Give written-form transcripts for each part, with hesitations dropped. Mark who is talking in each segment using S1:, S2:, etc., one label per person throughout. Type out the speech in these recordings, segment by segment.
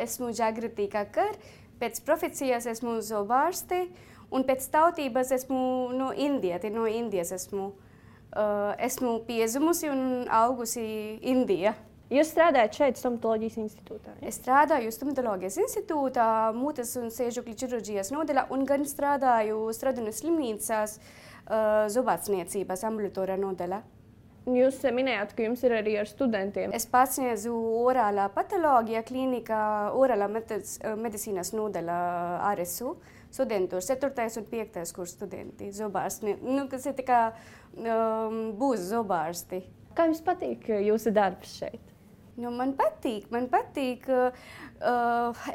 S1: Esmu Jagrati Kakar, pēc profesijas esmu zobārste, un pēc tautības esmu no Indijas esmu. Esmu piedzimusi un augusi Indijā.
S2: Jūs strādājat šeit stomatoloģijas institūtā? Ja?
S1: Es strādāju stomatoloģijas institūtā, mutes un sēžokļu ķirurģijas nodaļā, un gan strādāju Stradunas slimnīcās zobārstniecības ambulatorā nodaļā.
S2: Jūs minējāt, ka jums ir arī ar studentiem.
S1: Es pasniedzu orālā patoloģija klīnikā, orālā medicīnas nodaļā RSU. Studentu 4. un 5. kurs studenti, zobārsti, kas ir tā kā būs zobārsti.
S2: Kā jums patīk jūsu darbs šeit?
S1: Man patīk.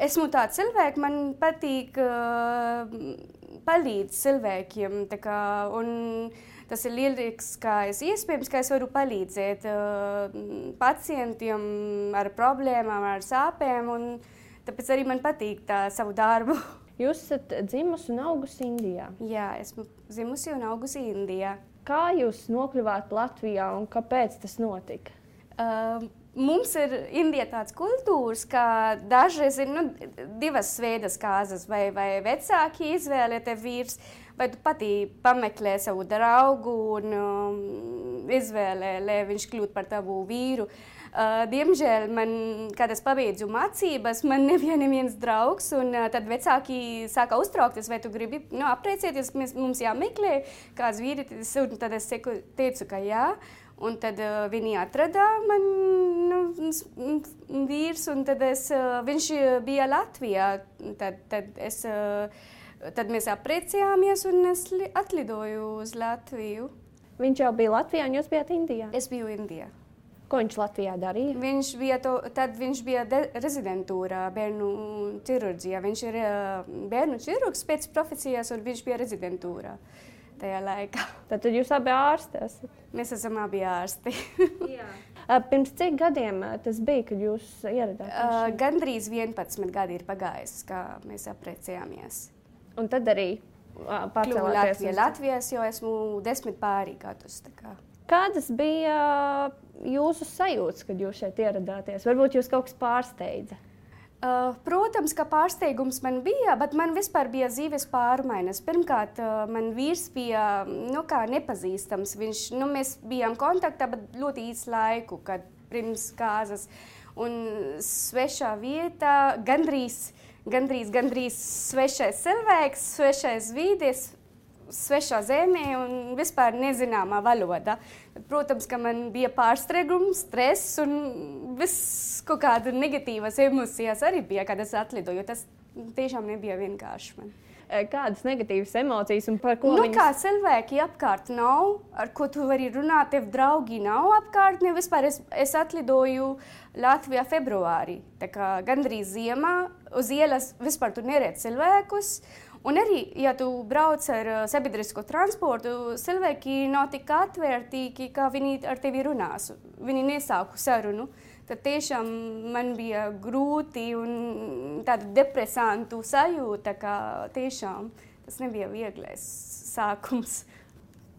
S1: Esmu tāds cilvēks, man patīk palīdz cilvēkiem. Un tas ir lieliskais iespējams, ka es varu palīdzēt pacientiem ar problēmām, ar sāpēm. Un tāpēc arī man patīk savu darbu.
S2: Jūs esat dzimusi un augusi Indijā?
S1: Jā, esmu dzimusi un augusi Indijā.
S2: Kā jūs nokļuvāt Latvijā un kāpēc tas notika?
S1: Mums ir Indijā tāds kultūras, ka dažreiz ir divas veidas kārtas, vai vecāki izvēlē te vīrs, vai tu patī pameklē savu draugu un izvēlē, lai viņš kļūtu par tavu vīru. Diemžēl, kad es pabeidzu mācības, man nebija neviens draugs, un tad vecāki sāka uztraukties, vai tu gribi apprecēties, mums jāmeklē kāds vīrietis, un tad es teicu, ka jā. Un tad viņi atrada man vīrs, un tad viņš bija Latvijā. Tad mēs apprecējāmies, un es atlidoju uz Latviju.
S2: Viņš jau bija Latvijā, un jūs bijāt Indijā?
S1: Es biju Indijā.
S2: Ko viņš Latvijā darīja?
S1: Viņš bija rezidentūrā bērnu ķirurģijā. Viņš ir bērnu ķirurgs pēc profesijas, un viņš bija rezidentūrā tajā laikā.
S2: Tad jūs abi ārsti esat?
S1: Mēs esam abi ārsti.
S2: Pirms cik gadiem tas bija, kad jūs ieradāties?
S1: Gandrīz 11 gadi ir pagājis, kā mēs apprecējāmies.
S2: Un tad arī pārcēlāties uz
S1: Latvijas, jo esmu 10 pārī gadus.
S2: Kādas bija jūsu sajūtas, kad jūs šeit ieradāties? Varbūt jūs kaut kas pārsteidza?
S1: Protams, ka pārsteigums man bija, bet man vispār bija dzīves pārmaiņas. Pirmkārt, man vīrs bija nepazīstams. Mēs bijām kontaktā, bet ļoti īsu laiku, kad pirms kārtas. Un svešā vietā, gandrīz svešais cilvēks, svešais vīdes, svešā zemē un vispār nezināmā valoda. Protams, ka man bija pārsteigums, stress un viss kaut kāda negatīvas emocijas arī bija, kad es atlidoju. Tas tiešām nebija vienkārši man.
S2: Kādas negatīvas emocijas un par ko
S1: viņas? Kā cilvēki apkārt nav, ar ko tu vari runāt, tev draugi nav apkārt. Vispār es atlidoju Latvijā februārī. Tā kā gandrīz ziemā uz ielas vispār tu neredz cilvēkus. Un arī, ja tu brauc ar sabiedrisko transportu, cilvēki nav tik atvērtīgi, kā viņi ar tevi runās. Viņi nesāku sarunu. Tad tiešām man bija grūti un tāda depresantu sajūta, ka tiešām tas nebija vieglais sākums.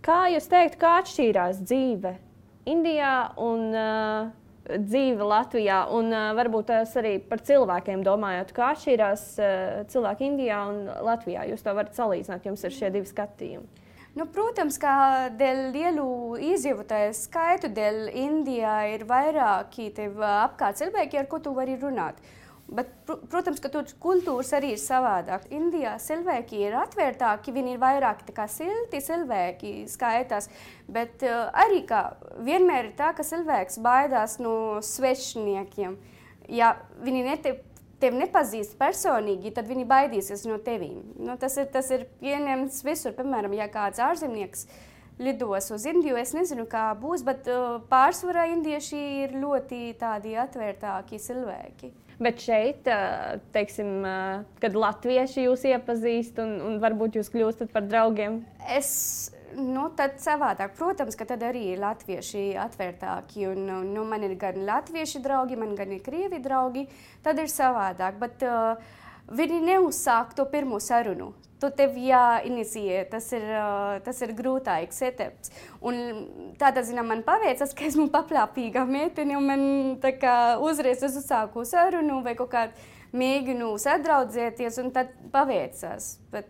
S2: Kā jūs teikt, kā atšķīrās dzīve Indijā un dzīve Latvijā, un varbūt tās arī par cilvēkiem domājot, kā atšķirās cilvēki Indijā un Latvijā. Jūs to varat salīdzināt, jums ir šie divi skatījumi.
S1: Protams, ka dēļ lielu iedzīvotāju skaitu, dēļ Indijā ir vairāki tev apkārt cilvēki, ar ko tu vari runāt. Bet, protams, ka tur kultūras arī ir savādāk. Indijā cilvēki ir atvērtāki, viņi ir vairāk silti cilvēki skaitās, bet arī vienmēr ir tā, ka cilvēks baidās no svešniekiem. Ja viņi tevi nepazīst personīgi, tad viņi baidīsies no tevīm. Tas ir pieņemts visur. Piemēram, ja kāds ārzemnieks lidos uz Indiju, es nezinu, kā būs, bet pārsvarā indieši ir ļoti tādi atvērtāki cilvēki.
S2: Bet šeit, teiksim, kad latvieši jūs iepazīst un varbūt jūs kļūstat par draugiem?
S1: Tad savādāk. Protams, ka tad arī latvieši atvērtāki. Man ir gan latvieši draugi, man gan ir krievi draugi. Tad ir savādāk. Bet viņi neuzsāk to pirmo sarunu. Tu tev jāinicijē. Tas ir grūtāks etaps. Un tādā ziņā man paveicas, ka esmu paplāpīga meitene un man uzreiz uzsāku sarunu vai kaut kādu mēģinu sadraudzēties, un tad paveicās. Bet,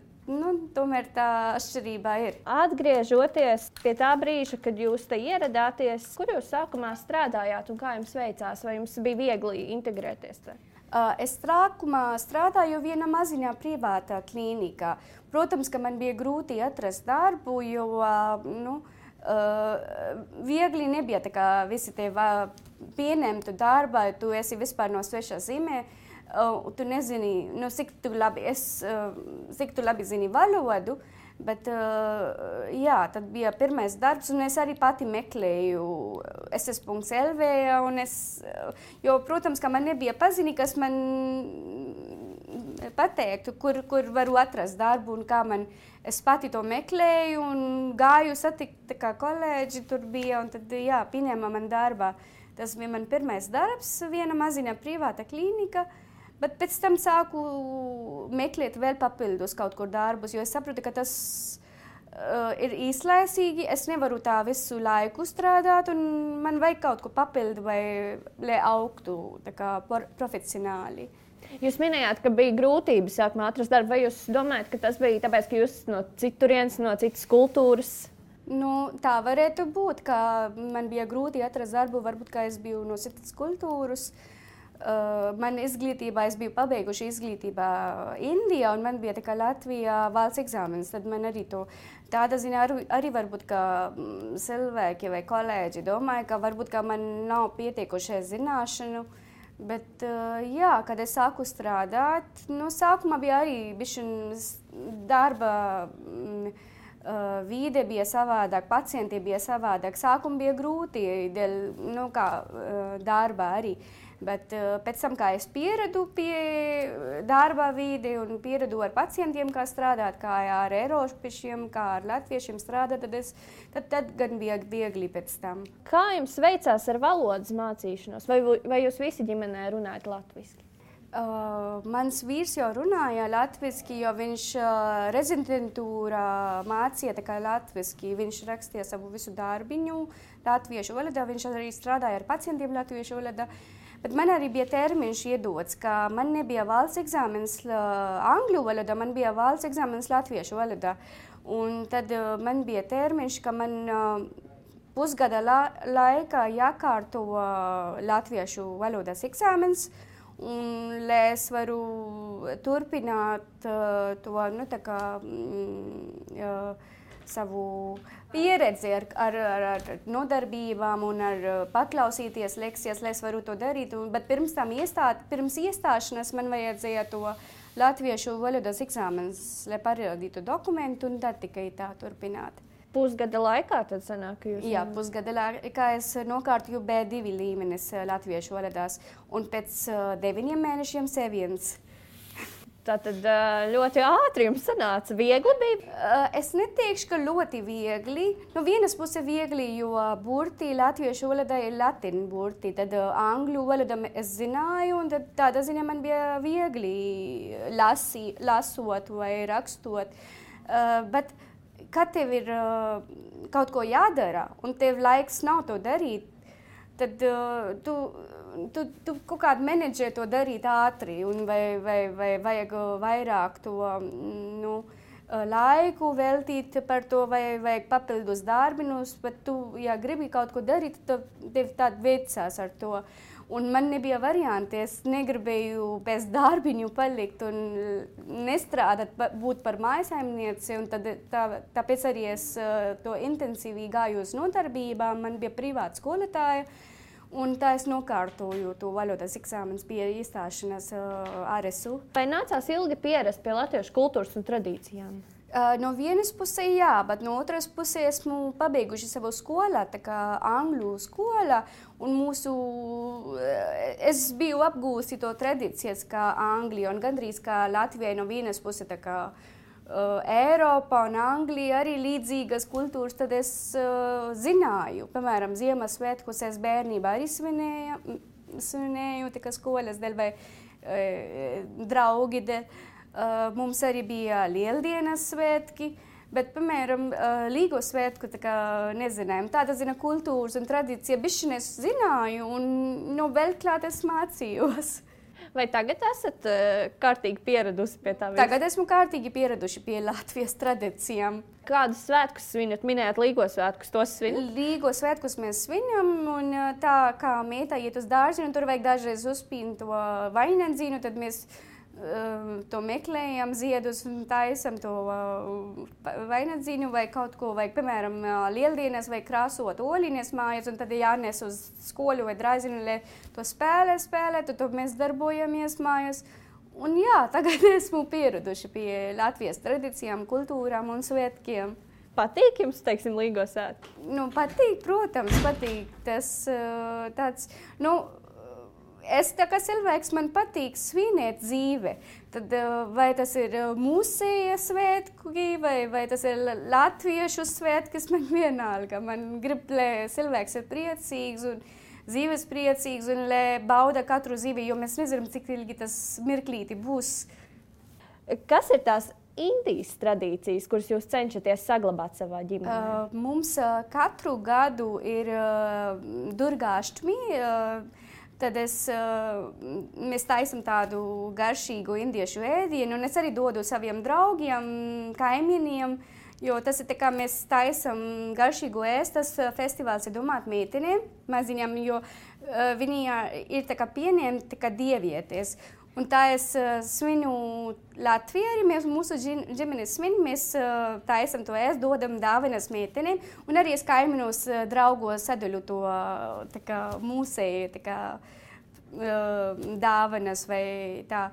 S1: tomēr tā atšķirība ir.
S2: Atgriežoties pie tā brīža, kad jūs te ieradāties, kur jūs sākumā strādājāt un kā jums veicās? Vai jums bija viegli integrēties te?
S1: Es sākumā strādāju vienā maziņā privātā klīnikā. Protams, ka man bija grūti atrast darbu, jo viegli nebija tā kā visi tevi pieņemtu darbā, tu esi vispār no svešā zemē. Tu nezini, cik tu labi zini valodu, bet tad bija pirmais darbs, un es arī pati meklēju ss.lv, jo, protams, ka man nebija paziņi, kas man pateiktu, kur varu atrast darbu un kā es pati to meklēju un gāju satikt, kā kolēģi tur bija, un tad, pieņēma man darbā. Tas bija man pirmais darbs, viena maziņa privāta klīnika, bet pēc tam sāku meklēt vēl papildus kaut kur darbus, jo es saprotu, ka tas ir īslaicīgi, es nevaru tā visu laiku strādāt, un man vajag kaut ko papildu, lai augtu tā kā profesionāli.
S2: Jūs minējāt, ka bija grūtības sākumā atrast darbu. Vai jūs domājat, ka tas bija tāpēc, ka jūs no citurienes, no citas kultūras?
S1: Tā varētu būt, ka man bija grūti atrast darbu, varbūt, ka es biju no citas kultūras. Man izglītībā, es biju pabeiguši izglītībā Indijā, un man bija tā kā Latvijā valsts eksāmenis. Tad man arī tāda ziņā arī varbūt, ka cilvēki vai kolēģi domāja, ka varbūt, ka man nav pietiekušie zināšanu. Bet, kad es sāku strādāt, sākumā bija arī darba vide bija savādāk, pacienti bija savādāk. Sākumā bija grūti, darba arī. Bet pēc tam, kā es pieradu pie darba vidi un pieradu ar pacientiem, kā strādāt, kā ar eiropiešiem, kā ar latviešiem strādāt, tad gan bija viegli pēc tam.
S2: Kā jums veicās ar valodas mācīšanos? Vai jūs visi ģimenē runājat latviski?
S1: Mans vīrs jau runāja latviski, jo viņš rezidentūrā mācīja tā kā latviski. Viņš rakstīja savu visu darbiņu latviešu valodā, viņš arī strādāja ar pacientiem latviešu valodā. Bet man arī bija termiņš iedots, ka man nebija valsts eksāmenis angļu valodā, man bija valsts eksāmenis latviešu valodā. Un tad man bija termiņš, ka man pusgada laikā jākārto latviešu valodas eksāmenis, un lai es varu turpināt savu pieredzi ar nodarbībām un ar paklausīties lekcijas, lai es varu to darīt. Bet pirms iestāšanās man vajadzēja to latviešu valodas eksāmenis, lai parādītu dokumentu, un tad tikai tā turpināt.
S2: Pusgada laikā tad sanāk, ka jūs...
S1: Jā, pusgada laikā es nokārtoju B2 līmenis latviešu valodās, un pēc 9 mēnešiem C1.
S2: Tātad ļoti ātri jums sanāca. Viegli bija?
S1: Es neteikšu, ka ļoti viegli. No vienas puses viegli, jo burti latviešu valodā ir latīņu burti. Tad angļu valodā es zināju, un tad tādā ziņā man bija viegli lasot vai rakstot. Bet kad tev ir kaut ko jādara, un tev laiks nav to darīt, tad tu kaut kādu menedžē to darīt ātri, un vai vajag vairāk to laiku veltīt par to, vai vajag papildus darbinus, bet tu, ja gribi kaut ko darīt, tad tev tād veicās ar to. Un man nebija varianti, es negribēju bez darbiņu palikt un nestrādāt, būt par mājasaimnieci, un tāpēc arī es to intensīvi gāju uz nodarbībām, man bija privāta skolotāja, un tā es nokārtoju to valodas eksāmenis pie iestāšanās RSU.
S2: Vai nācās ilgi pierast pie latviešu kultūras un tradīcijām?
S1: No vienas puses jā, bet no otras puses esmu pabeiguši savu skolā, tā kā angļu skolā, un es biju apgūsi to tradīcijas kā Anglija, un gandrīz kā Latvijai no vienas puses tā kā Eiropa un Anglija arī līdzīgas kultūras, tad es zināju, piemēram, Ziemassvētkus es bērnībā arī svinēju, tā kā skolas dēļ vai draugi dēļ. Mums arī bija lieldienas svētki, bet, piemēram, Līgo svētku nezinājām. Tāda zina kultūras un tradīcija bišķi es zināju, un vēl klāt es mācījos.
S2: Vai tagad esat kārtīgi pieradusi pie tā?
S1: Tagad esmu kārtīgi pieraduši pie Latvijas tradīcijām.
S2: Kādus svētkus svinat? Minējāt Līgo svētkus, tos svinat?
S1: Līgo svētkus mēs svinam, un tā kā mītā iet uz dārziņu, tur vajag dažreiz uzpīnt to vainagdzīnu, tad mēs to meklējam, ziedus un taisam to vainagdzīnu vai kaut ko, vai, piemēram, lieldienas vai krāsot oļiņas mājas, un tad jānes uz skolu vai dārziņu, lai to spēlētu, tad mēs darbojamies mājas. Un jā, tagad esmu pieraduši pie Latvijas tradīcijām, kultūrām un svētkiem.
S2: Patīk jums, teiksim, Līgo svētki?
S1: Nu, patīk, protams, patīk. Tas tāds, es tā kā cilvēks, man patīk svinēt dzīve. Tad vai tas ir mūsēja svētki, vai tas ir latviešu svētki, man vienalga. Man grib, lai cilvēks ir priecīgs un dzīves priecīgs un lai bauda katru dzīvi, jo mēs nezinām, cik ilgi tas mirklīti būs.
S2: Kas ir tās Indijas tradīcijas, kuras jūs cenšaties saglabāt savā ģimenē?
S1: Mums katru gadu ir Durgāštmi, tad mēs taisam tādu garšīgu indiešu ēdienu, un es arī dodu saviem draugiem, kaimiņiem, jo tas ir tā kā mēs taisam garšīgu ēst, tas festivāls ir domāt meitenēm, maziņām, jo viņi ir tā kā pieņemti tā kā dievietes. Un tā es svinu Latvijā, arī mēs mūsu ģimenes svin, mēs taisam to ēst, dodam dāvanas meitenēm, un arī es kaimiņos draugos sadaļu to tā kā mūsēju, tā kā dāvanas vai tā.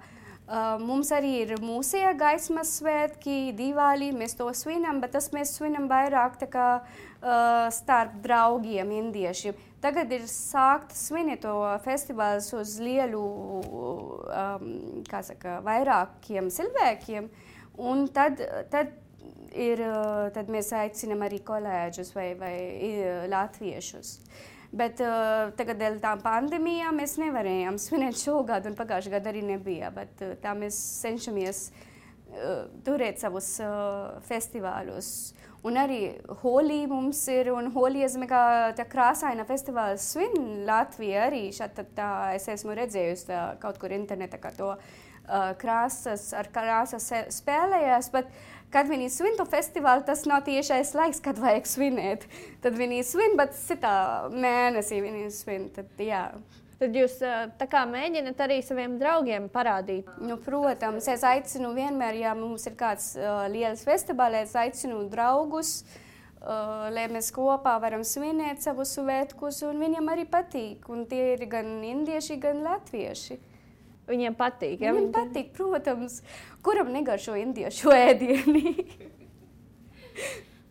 S1: Mums arī ir mūsēja gaismas svētki, Divāli, mēs to svinam, bet tas mēs svinam vairāk tā kā starp draugiem indiešiem. Tagad ir sākt svinēt to festivāls uz lielu, vairākiem cilvēkiem, un tad mēs aicinam arī kolēģus vai latviešus. Bet tagad dēļ tām pandēmijām mēs nevarējām svinēt šogad, un pagājušajā gadā arī nebija. Bet tā mēs cenšamies turēt savus festivālus. Un arī Holī mums ir, un Holī kā tā krāsaina festivāls svin Latvija arī. Šādi es esmu redzējusi kaut kur internetā, kā to krāsas spēlējās, bet kad viņi svin to festivālu, tas nav tiešais laiks, kad vajag svinēt. Tad viņi svin, bet citā mēnesī viņi svin, tad jā.
S2: Tad jūs tā kā mēģināt arī saviem draugiem parādīt?
S1: Nu, protams, es aicinu vienmēr, ja mums ir kāds liels festivāls, es aicinu draugus, lai mēs kopā varam svinēt savus svētkus, un viņiem arī patīk. Un tie ir gan indieši, gan latvieši.
S2: Viņiem patīk, ja?
S1: Viņiem patīk, protams. Kuram negaršo indiešu ēdieni?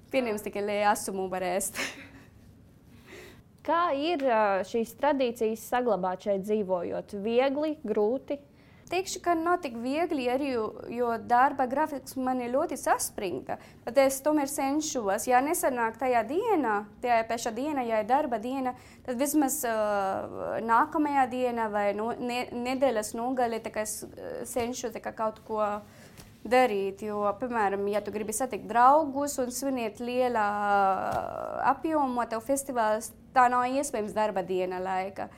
S1: Pieņems tikai, lai asumu var ēst.
S2: Kā ir šīs tradīcijas saglabāt šeit dzīvojot? Viegli, grūti?
S1: Teikšu, ka nav tik viegli, arī, jo darba grafiks man ir ļoti saspringta. Bet es tomēr cenšos. Ja nesanāk tajā pašā dienā, ja ir darba diena, tad vismaz nākamajā dienā vai nedēļas nogalē es cenšos kaut ko darīt. Jo, piemēram, ja tu gribi satikt draugus un svinēt lielā apjomā, tev festivāls, tā nav iespējams darba diena laika.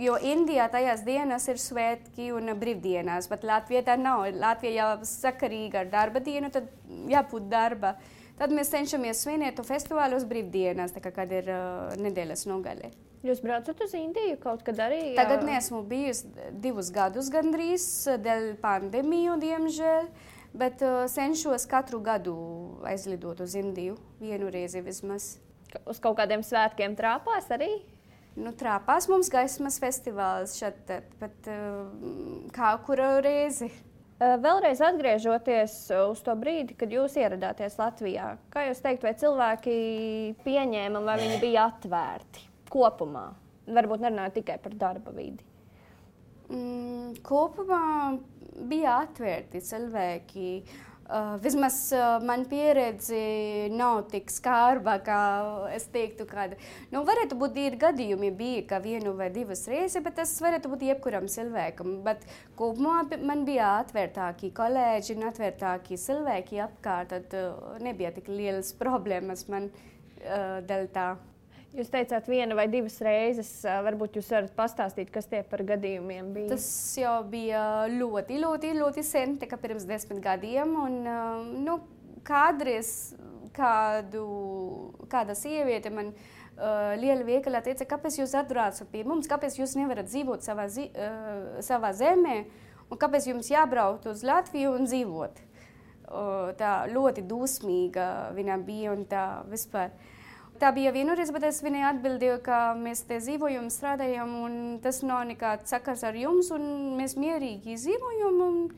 S1: Jo Indijā tajās dienas ir svētki un brīvdienas, bet Latvijā tā nav. Latvijā jau sakarīga ar darba dienu, tad jābūt darba. Tad mēs cenšamies svinēt to festivālu uz brīvdienas, tā kā kad ir nedēļas nogalē.
S2: Jūs braucat uz Indiju kaut kad arī?
S1: Tagad neesmu bijusi 2 gadus gandrīz, dēļ pandēmiju, diemžēl, bet cenšos katru gadu aizlidot uz Indiju, vienu reizi vismaz.
S2: Uz kaut kādiem svētkiem Trāpās arī?
S1: Nu, Trāpās mums gaismas festivāls šeit, bet kā kuru reizi.
S2: Vēlreiz atgriežoties uz to brīdi, kad jūs ieradāties Latvijā, kā jūs teikt, vai cilvēki pieņēma, vai viņi bija atvērti kopumā? Varbūt nerunājot tikai par darba vidi.
S1: Kopumā bija atvērti cilvēki. Vismaz man pieredze nav tik skarba, kā es teiktu, kāda. Nu, varētu būt ir gadījumi bija, ka 1 vai 2 reizes, bet tas varētu būt jebkuram cilvēkam. Bet kopumā man bija atvērtāki kolēģi un atvērtāki cilvēki apkārt, tad nebija tik lielas problēmas man dēļ tā.
S2: Jūs teicāt, 1 vai 2 reizes. Varbūt jūs varat pastāstīt, kas tie par gadījumiem bija?
S1: Tas jau bija ļoti sen, tā kā pirms 10 gadiem. Un, kādreiz kāda sieviete man liela veikalā teica, kāpēc jūs atbraucat pie mums, kāpēc jūs nevarat dzīvot savā zemē, un kāpēc jums jābraukt uz Latviju un dzīvot. Tā ļoti dusmīga viņa bija un tā vispār. Tā bija vienreiz, bet es viņai atbildēju, ka mēs te dzīvojam, strādājam, un tas nav nekāds sakars ar jums, un mēs mierīgi dzīvojam, un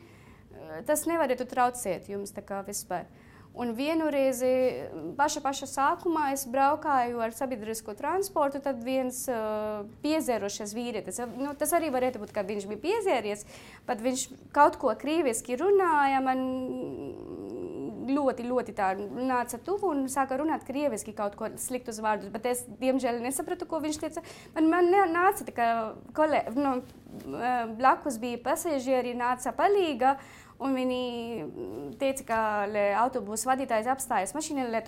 S1: tas nevarētu traucēt jums tā kā vispār. Un vienreiz paša sākumā es braukāju ar sabiedrisko transportu, tad viens piezērušies vīrietis. Tas arī varētu būt, ka viņš bija piezēries, bet viņš kaut ko krieviski runāja, man ļoti tā nāca tuvu un sāka runāt krieviski kaut ko sliktus vārdus, bet es, diemžēl, nesapratu, ko viņš teica. Man nāca tā kā blakus bija pasažieri, nāca palīga, un viņi teica, ka autobusu vadītājs apstājas mašīnā, lai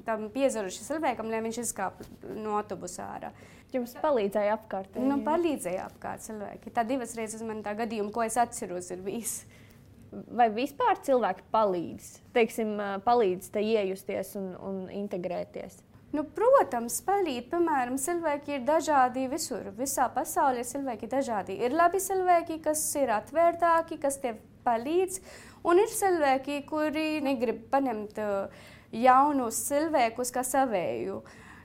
S1: tam piezaruši cilvēkam, lai viņš izkāp no autobusa ārā.
S2: Jums palīdzēja apkārt?
S1: Palīdzēja apkārt cilvēki. Tā 2 reizes man tā gadījuma, ko es atceros, ir bijis.
S2: Vai vispār cilvēki palīdz? Teiksim, palīdz te iejusties un integrēties?
S1: Protams, palīdz. Piemēram, cilvēki ir dažādi visur. Visā pasaulē cilvēki ir dažādi. Ir labi cilvēki, kas ir atvērtāki, kas tev palīdz, un ir cilvēki, kuri negrib paņemt jaunus cilvēkus kā savēju.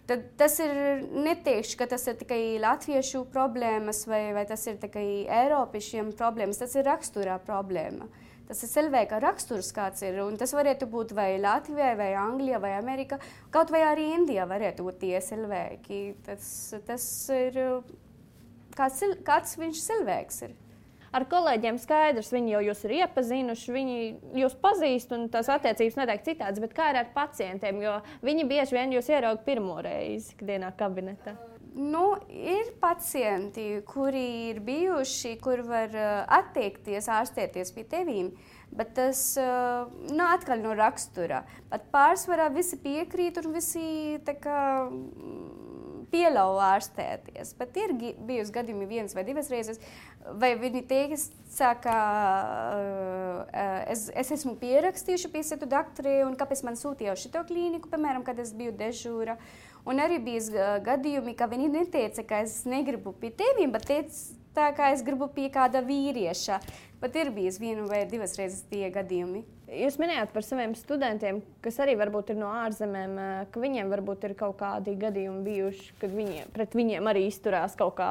S1: Tad tas ir neteikšu, ka tas ir tikai latviešu problēmas vai tas ir tikai eiropiešiem problēmas. Tas ir raksturā problēma. Tas ir cilvēka raksturs, kāds ir, un tas varētu būt vai Latvijā, vai Anglijā, vai Amerikā, kaut vai arī Indijā varētu būt tie cilvēki. Tas ir, kāds viņš cilvēks ir.
S2: Ar kolēģiem skaidrs, viņi jau jūs ir iepazinuši, viņi jūs pazīst, un tās attiecības noteikti citādas, bet kā ir ar pacientiem, jo viņi bieži vien jūs ierauga pirmo reizi ikdienā kabinetā?
S1: Ir pacienti, kuri ir bijuši, kur var atteikties, ārstēties pie tevīm, bet tas atkal no rakstura. Bet pārsvarā visi piekrīt un visi tā kā pieļauj ārstēties. Bet ir bijusi gadījumi 1 vai 2 reizes, vai viņi teica, ka es esmu pierakstījuši pie citu doktori, un kāpēc man sūtīja uz šito klīniku, piemēram, kad es biju dežūra. Un arī bija gadījumi, ka viņi neteica, ka es negribu pie tevīm, bet teica, ka es gribu pie kāda vīrieša. Bet ir bijis 1 vai 2 reizes tie gadījumi.
S2: Jūs minējāt par saviem studentiem, kas arī varbūt ir no ārzemēm, ka viņiem varbūt ir kaut kādi gadījumi bijuši, kad pret viņiem arī izturās kaut kā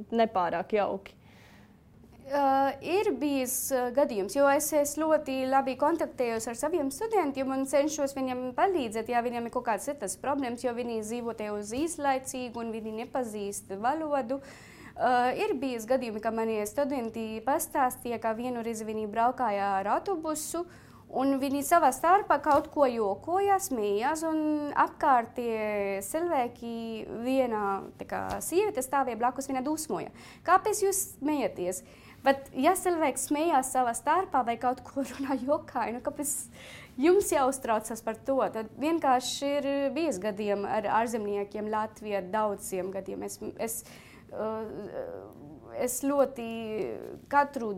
S2: nepārāk jauki.
S1: Ir bijis gadījums, jo es ļoti labi kontaktējos ar saviem studentiem un cenšos viņiem palīdzēt, ja viņiem ir kaut kādas citas problēmas, jo viņi dzīvo te uz īslaicīgu un viņi nepazīst valodu. Ir bijis gadījumi, ka mani studenti pastāstīja, ka vienu reizi viņi braukāja ar autobusu, un viņi savā starpā kaut ko jokoja, smējās, un apkārtie cilvēki viena sieviete stāvēja blakus, viņa dusmoja. Kāpēc jūs smejaties? Bet, ja cilvēks smējās savā starpā vai kaut ko runā jokai, kāpēc jums jāuztraucas par to? Tad vienkārši ir bijis gadījumi ar ārzemniekiem Latvijā, daudziem gadījumiem. Es ļoti katru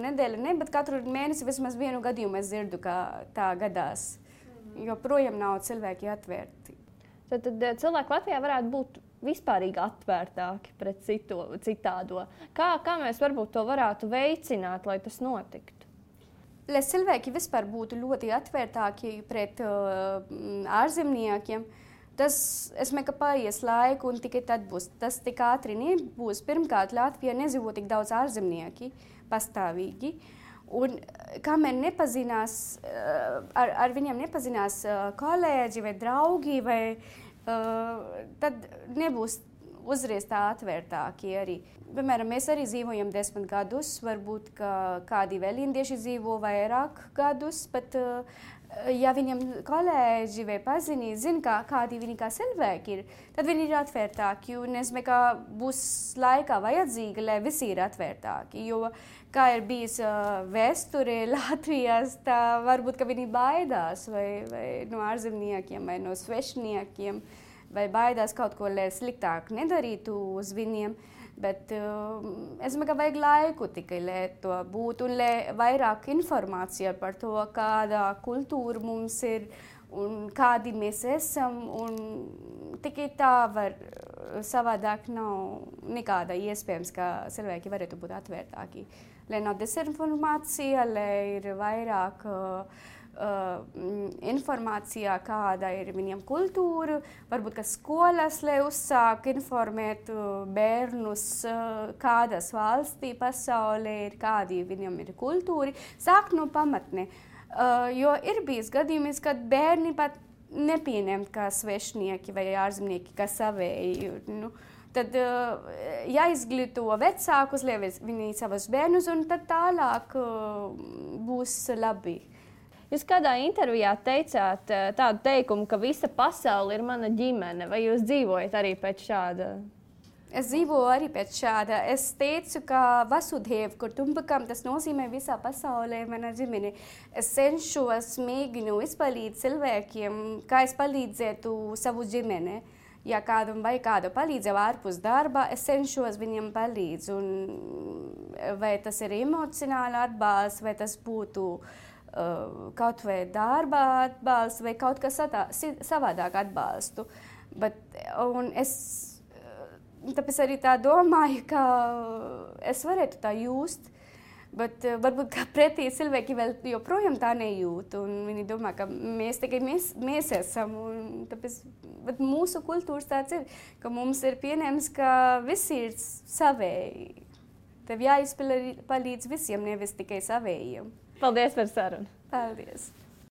S1: nedēļu, bet katru mēnesi vismaz vienu gadījumu es dzirdu, ka tā gadās. Jo projām nav cilvēki atvērti.
S2: Tad cilvēki Latvijā varētu būt vispārīgi atvērtāki pret citādo. Kā mēs varbūt to varētu veicināt, lai tas notiktu?
S1: Lai cilvēki vispār būtu ļoti atvērtāki pret ārzemniekiem, es domāju, ka paies laiku un tikai tad būs. Tas tik ātri nebūs. Pirmkārt, Latvijā nedzīvo tik daudz ārzemnieki pastāvīgi. Un kamēr nepazinās, ar viņiem nepazinās kolēģi vai draugi, tad nebūs uzreiz tā atvērtāki arī. Piemēram, mēs arī dzīvojam 10 gadus, varbūt kādi vēl indieši dzīvo vairāk gadus, bet ja viņam kolēģi vai paziņi zina, kādi viņi kā cilvēki ir, tad viņi ir atvērtāki. Un es domāju, ka būs laikā vajadzīgi, lai visi ir atvērtāki. Jo, kā ir bijis vēsture Latvijas, tā varbūt, ka viņi baidās vai no ārzemniekiem vai no svešniekiem. vai baidās kaut ko, lai sliktāk nedarītu uz viņiem. Bet es domāju, ka vajag laiku tikai, lai to būtu, un lai vairāk informācija par to, kāda kultūra mums ir un kādi mēs esam. Un tikai tā var, savādāk nav nekāda iespējams, ka cilvēki varētu būt atvērtāki. Lai nav dezinformācija, lai ir vairāk informācijā, kāda ir viņiem kultūra, varbūt, ka skolas, lai uzsāk informēt bērnus, kādas valstī pasaulē ir, kādi viņiem ir kultūri, sāk no pamatne. Jo ir bijis gadījums, kad bērni pat nepieņem kā svešnieki vai ārzemnieki, kā savēji. Tad jāizglīto vecākus, lai viņi savus bērnus, un tad tālāk būs labi.
S2: Jūs kādā intervijā teicāt tādu teikumu, ka visa pasaule ir mana ģimene. Vai jūs dzīvojat arī pēc šāda?
S1: Es dzīvoju arī pēc šāda. Es teicu, ka Vasudheva Kutumbakam tas nozīmē visā pasaulē mana ģimene. Es cenšos, mēģinu izpalīdzēt cilvēkiem, kā es palīdzētu savu ģimeni. Ja kādam vai kādu palīdzību ārpus darba, es cenšos viņiem palīdz. Vai tas ir emocionāli atbalsts, vai tas būtu kaut vai darba atbalsts, vai kaut kas savādāk atbalstu. Tāpēc arī tā domāju, ka es varētu tā just. Bet varbūt pretī cilvēki vēl joprojām tā nejūt. Viņi domā, ka mēs tikai mēs esam. Tāpēc mūsu kultūras tāds ir, ka mums ir pieņemts, ka visi ir savēji. Tev jāizpalīdz visiem, nevis tikai savējiem.
S2: Paldies par sarunu.
S1: Paldies.